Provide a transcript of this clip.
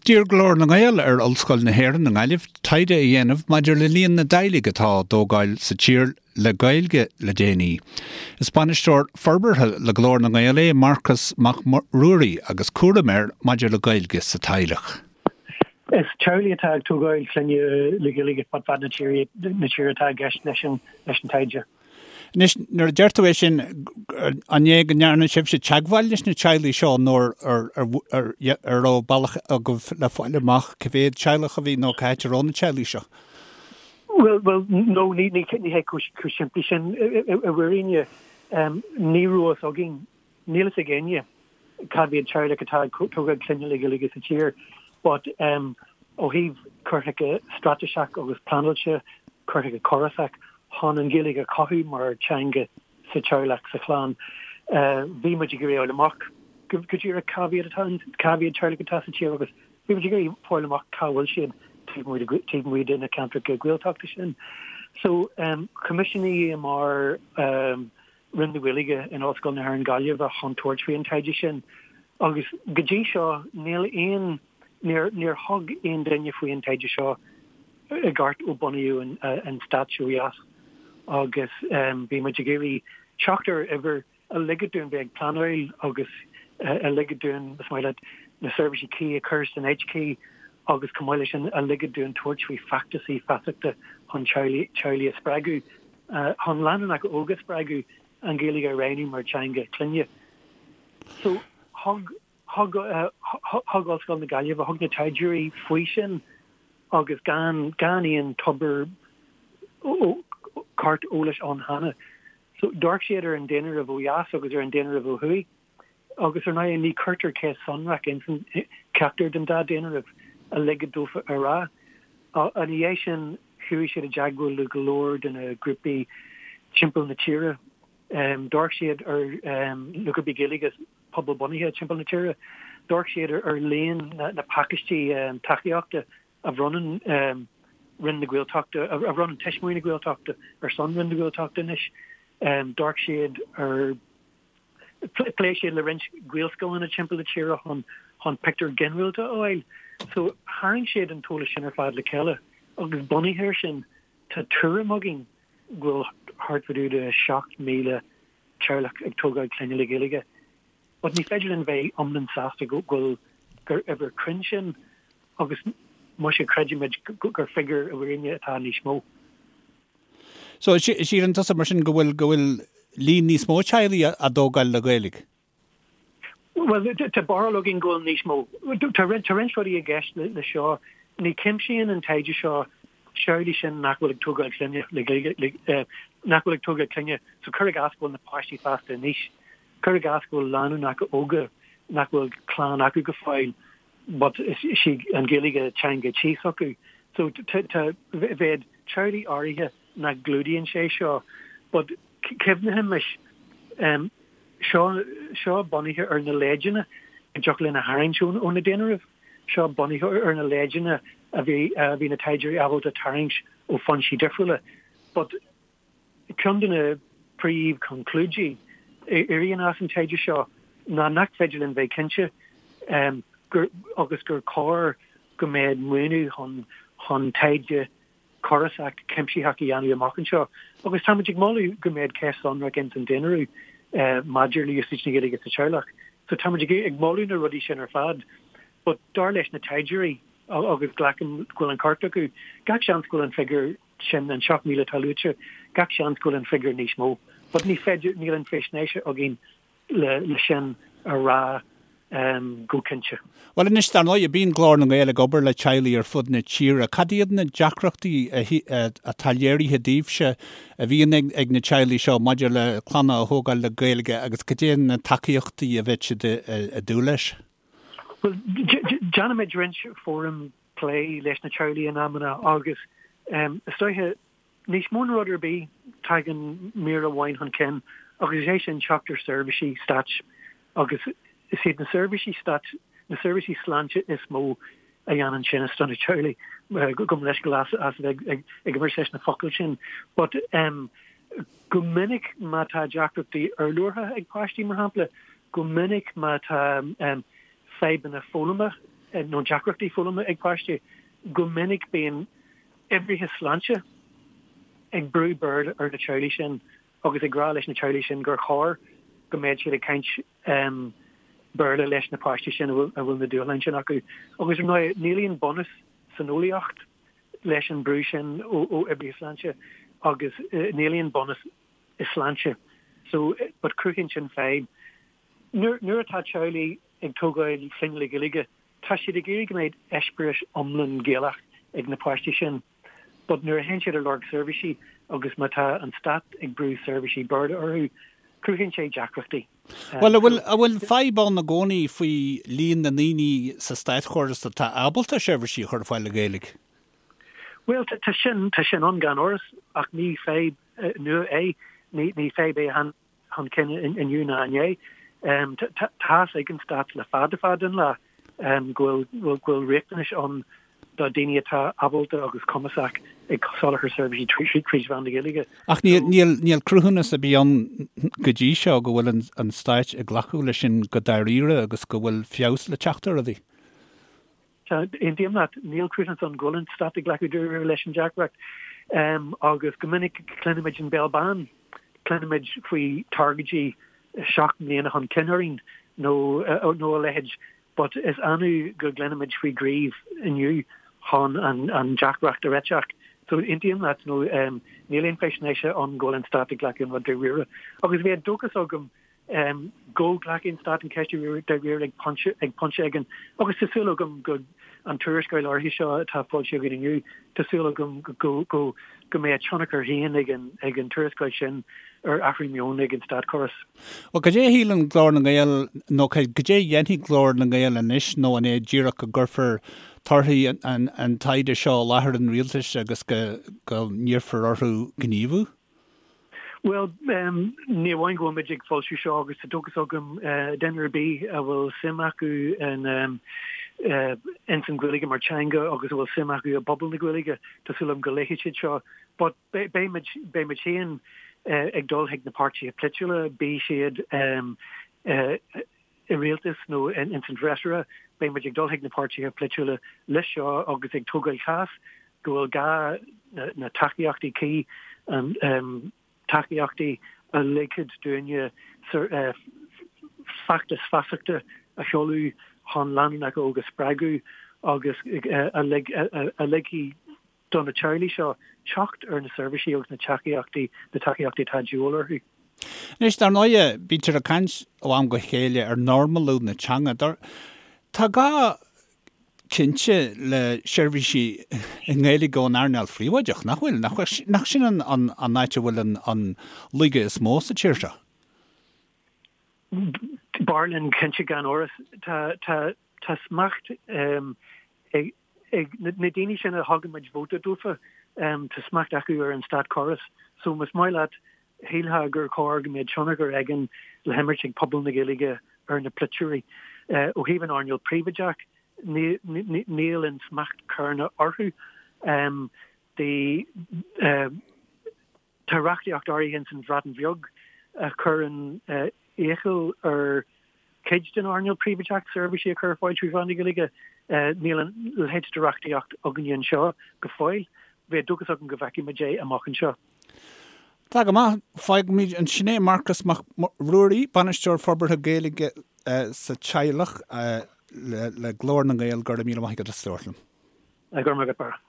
D'iarr Glór na nGael ar Ollscoil na hÉireann i nGaillimh taighde a dhéanamh maidir le líon na dteaghlaigh atá á dtógáil sa tír le Gaeilge le déanaí. Is bainisteoir forbartha le Glór na nGael é Marcas Mac Ruairí agus cúram air maidir le Gaeilge sa teaghlach. Is teaghlaigh atá ag tógáil clainne le Gaeilge fud fad na tíre atá i gceist leis an taighde. Anois, nuair a deir tú é sin, an é go ndearna sibhse teagmháil leis na teaghlaigh seo nó ar raibh bealach agaibh le fáil amach cá mhéad teaghlach a bhí nó cá háit a raibh na teaghlaigh seo? Bhuel, bhuel, no, ní hé chomh simplí sin i bhfírinne. Ní raibh fhios againn Níl fhios ag éinne cá mhéad teaghlach atá ag tógáil clainne le Gaeilge sa tír but ó thaobh cur chuige straitéiseach agus pleanáilte, cur chuige córasach chun an Ghaeilge a chothú mar teanga sa teaghlach, sa chlann, bhí muid ag iarraidh fháil amach go díreach cá mhéad atá, cá mhéad teaghlach atá sa tír agus bhí muid ag iarraidh fáil amach cá bhfuil siad taobh amuigh de na ceantracha Gaeltachta sin. So choimisiúnaíomar Roinn na Gaeilge in Ollscoil na hÉireann Gaillimh chun tabhairt faoi an taighde sin agus go dtí seo níl aon, níor, níor thug aon duine faoi an taighde seo i gceart ó bunaíodh an stát seo ó dheas agus bhí muid ag iarraidh teacht ar uimhir a ligfeadh dúinn bheith ag pleanáil agus a ligfeadh dúinn, is maith leat, na seirbhísí cuí a chur san áit chuí agus chomh maith leis sin a ligfeadh dúinn tabhairt faoi feachtasaí feasachta chun teaghlaigh a spreagadh. chun lánúineacha óga a spreagadh an Ghaeilge a roghnú mar teanga clainne. So thug, thug, thug Ollscoil na Gaillimhe, thug na taighdeoirí faoi sin agus gan, gan aon tobar ceart eolais ann cheana. So d'amharc siad ar an daonáireamh ó dheas agus ar an daonáireamh ó thuaidh. Agus ar ndóigh ní cuirtear ceist sonrach ins ceachtar den dá daonáireamh a ligfeadh dófa a rá. Ina dhiaidh sin chuaigh siad i dteagmháil le go leor de na grúpaí timpeall na tíre. D'amharc siad ar na grúpaí Gaeilge pobalbhunaithe timpeall na tíre. D'amharc siad ar líon na pacáistí tacaíochta a bhronnann Roinn na Gaeltachta, a bhronnann Tuismitheoirí na Gaeltachta ar son Roinn na Gaeltachta anois. D'amharc siad ar. Phléigh siad le roinnt Gaelscoileanna timpeall na tíre chun chun pictiúr ginearálta a fháil. So tharraing siad an t-eolas sin ar fad le chéile agus bunaithe air sin tá tuairim againn go bhfuil thart fá dtaobh de 7,000 teaghlach ag tógáil clainne le Gaeilge. But ní féidir linn bheith iomlán sásta go bhfuil gur uimhir cruinn sin agus muise creidimid gur figiúr i bhfírinne atá níos mó. So, síleann tusa mar sin go bhfuil, go bhfuil líon níos mó teaghlaigh á dtógáil le Gaeilge? Bhuel, tá barúil againn go bhfuil níos mó. Tá roinnt, tá roinnt rudaí i gceist le seo. Ní chuimsíonn an taighde seo teaghlaigh sin nach bhfuil ag tógáil clainne le Gaeilge, le, nach bhfuil ag tógáil clainne, so cuir i gcás go bhfuil na páistí fásta anois, cuir i gcás go bhfuil lánúineacha óga nach bhfuil clann acu go fóill, but is í an Ghaeilge teanga tí s'acu. So tá, bheadh teaghlaigh áirithe nach gclúdaíonn sé seo, but cuimhnighimis, seo, seo bunaithe ar na leideanna a dtiocfadh linn a tharraingt ó na daonáirimh, seo bunaithe ar na leideanna a bhí, a bhí na taighdeoirí ábalta tarraingt ó foinsí difriúla. But Ceann de na príomhchonclúidí a éiríonn as an taighde seo ná nach féidir linn bheith cinnte gur agus gur cóir go mbeadh maoiniú chun chun taighde córasach cuimsitheach a dhéanamh amach anseo agus táimid ag moladh go mbeadh ceist sonrach ins an daonáireamh maidir le úsáid na Gaeilge sa teaghlach. So táimid ag moladh na rudaí sin ar fad but dar leis na taighdeoirí agus glacaim go bhfuil an ceart acu, gach seans go bhfuil an figiúr sin an 7,000 atá luaite, gach seans go bhfuil an figiúr níos mó. But ní féidir, níl an faisnéis againn le le sin a rá go cinnte. Bhuel anois, dar ndóigh, bíonn Glór na nGael ag obair le teaghlaigh ar fud na tíre. Cad iad na deacrachtaí atá léirithe daoibhse a bhíonn ag na teaghlaigh seo maidir le clanna a thógáil le Gaeilge agus cad é na tacaíochtaí a bheadh siad ag dúil leis? Bhuel, déanaimid roinnt fóram plé leis na teaghlaigh in amanna agus is dóiche, níos mó ná rud ar bith, tagann mír amháin chun cinn agus is é sin teacht ar seirbhísí stáit agus is iad na seirbhísí stáit, na seirbhísí sláinte is mó a dhéanann tinneas do na teaghlaigh. Gabh mo leithscéal as a bheith ag imirt leis na focail sin but go minic má tá deacrachtaí urlabhartha ag páistí, mar shampla, go minic má tá fadhbanna foghlama. nó deacrachtaí foghlama ag páistí, go minic bíonn oibrithe sláinte ag brú Béarla ar na teaghlaigh sin agus ag rá leis na teaghlaigh sin gur chóir go mbeadh siad ag caint Béarla leis na páistí sin a bhfuil na dúshláin sin acu. Agus ar ndóigh, níl aon bunús san eolaíocht leis an brú sin ó oibrithe sláinte agus níl aon bunús i sláinte. So, but cruthaíonn sin fadhb. Nuair atá teaghlaigh ag tógáil clainne le Gaeilge, tá siad ag iarraidh go mbeidh eispéireas iomlán Gaelach ag na páistí sin. But nuair a théann siad ar lorg seirbhísí agus má tá an stát ag brú seirbhísí Béarla orthu, cruthaíonn sé deacrachtaí. Bhuel, an bhfuil, an bhfuil fadhb ann i gcónaí faoi líon na ndaoine sa státchóras atá ábalta seirbhísí a chur ar fáil le Gaeilge? Bhuel, tá sin, tá sin ann gan amhras, ach ní fadhb nua é. Ní, ní fadhb é a tháinig chun cinn inniu ná inné. Tá fhios ag an stát le fada fada an lá go bhfuil go bhfuil riachtanais ann do daoine atá ábalta agus cumasach ag soláthar seirbhísí tríd mheán na Gaeilge. Ach níl níl níl cruthúnas ar bith ann go dtí seo go bhfuil an an stáit ag glacadh leis sin go dáiríre agus go bhfuil feabhas le teacht ar rudaí. Tá, aontaím leat, níl cruthúnas ann go bhfuil an stát ag glacadh dáiríre leis an deacracht. Agus go minic cluinimid an béal bán, cluinimid faoi targaidí 7 mbliana chun cinn orainn nó nó a leithéid, but is annamh go gcluinimid faoi ghníomh inniu chun an an deacracht a réiteach. So aontaím leat, nó níl aon faisnéise ann go bhfuil an stát ag glacadh an rud dáiríre. Agus bheadh dóchas agam go nglacfaidh an Stát an cheist dáiríre ag pointe ag pointe éigin agus tá súil agam go an tuarascáil áirithe seo atá foilsithe againn inniu, tá súil agam go go go mbeidh a tionchar féin ag an ag an tuarascáil sin ar athrú meoin ag an státchóras. Bhuel, cad é a shíleann Glór na nGael nó cad é a dhéanfaidh Glór na nGael anois nó an é díreach go gcuirfear torthaí an an taighde seo i láthair an rialtais agus go go n-iarrfar orthu gníomhú? Bhuel, ní amháin go bhfuil muid ag foilsiú seo agus tá dóchas agam duine ar bith a bhfuil suim acu in ins an Ghaeilge mar teanga agus a bhfuil suim acu i bpobal na Gaeilge, tá súil agam go léifidh siad seo. But beidh muid, beidh muid féin ag dul chuig na páirtithe polaitiúla, bíodh siad i rialtas nó ins an bhfreasúra, beidh muid ag dul chuig na páirtithe polaitiúla leis seo agus ag tógáil chás go bhfuil gá na tacaíochtaí cuí, tacaíochtaí a ligfeadh dúinne feachtas feasachta a sheoladh chun lánúineacha óga a spreagadh agus a ligfidh do na teaghlaigh seo teacht ar na seirbhísí agus na tacaíochtaí, na tacaíochtaí atá de dhíobháil orthu. Anois, dar ndóighe, bítear ag caint ó am go chéile ar normalú na teanga. Tá gá cinnte le seirbhísí i nGaeilge ón earnáil phríobháideach, nach bhfuil? Nach sin an áit a bhfuil an laige is mó sa tír seo? B'fhearr linn cinnte gan amhras. Tá smacht ag ag na daoine sin a thugann muid vóta dófa, tá smacht acu ar an státchóras. So más maith leat, shílfeá gur chóir go mbeadh tionchar éigin le himirt ag pobal na Gaeilge ar na polaiteoirí. Ó thaobh an earnáil príobháideach, níl an smacht céanna orthu. Tá reachtaíocht áirithe ins an Bhreatain Bheag a chuireann iachall ar chuid den earnáil príobháideach seirbhísí a chur ar fáil trí mheán na Gaeilge. Níl a leithéid de reachtaíocht againne anseo go fóill. Bheadh dóchas agam go bhfeicfidh muid é amach anseo. Tá go maith. Fágfaimid ansin é. Marcas Mac Ruairí, Bainisteoir Forbartha Gaeilge sa Teaghlach le Glór na nGael, go raibh míle maith agat as labhairt liom. Go raibh maith agat, Barra.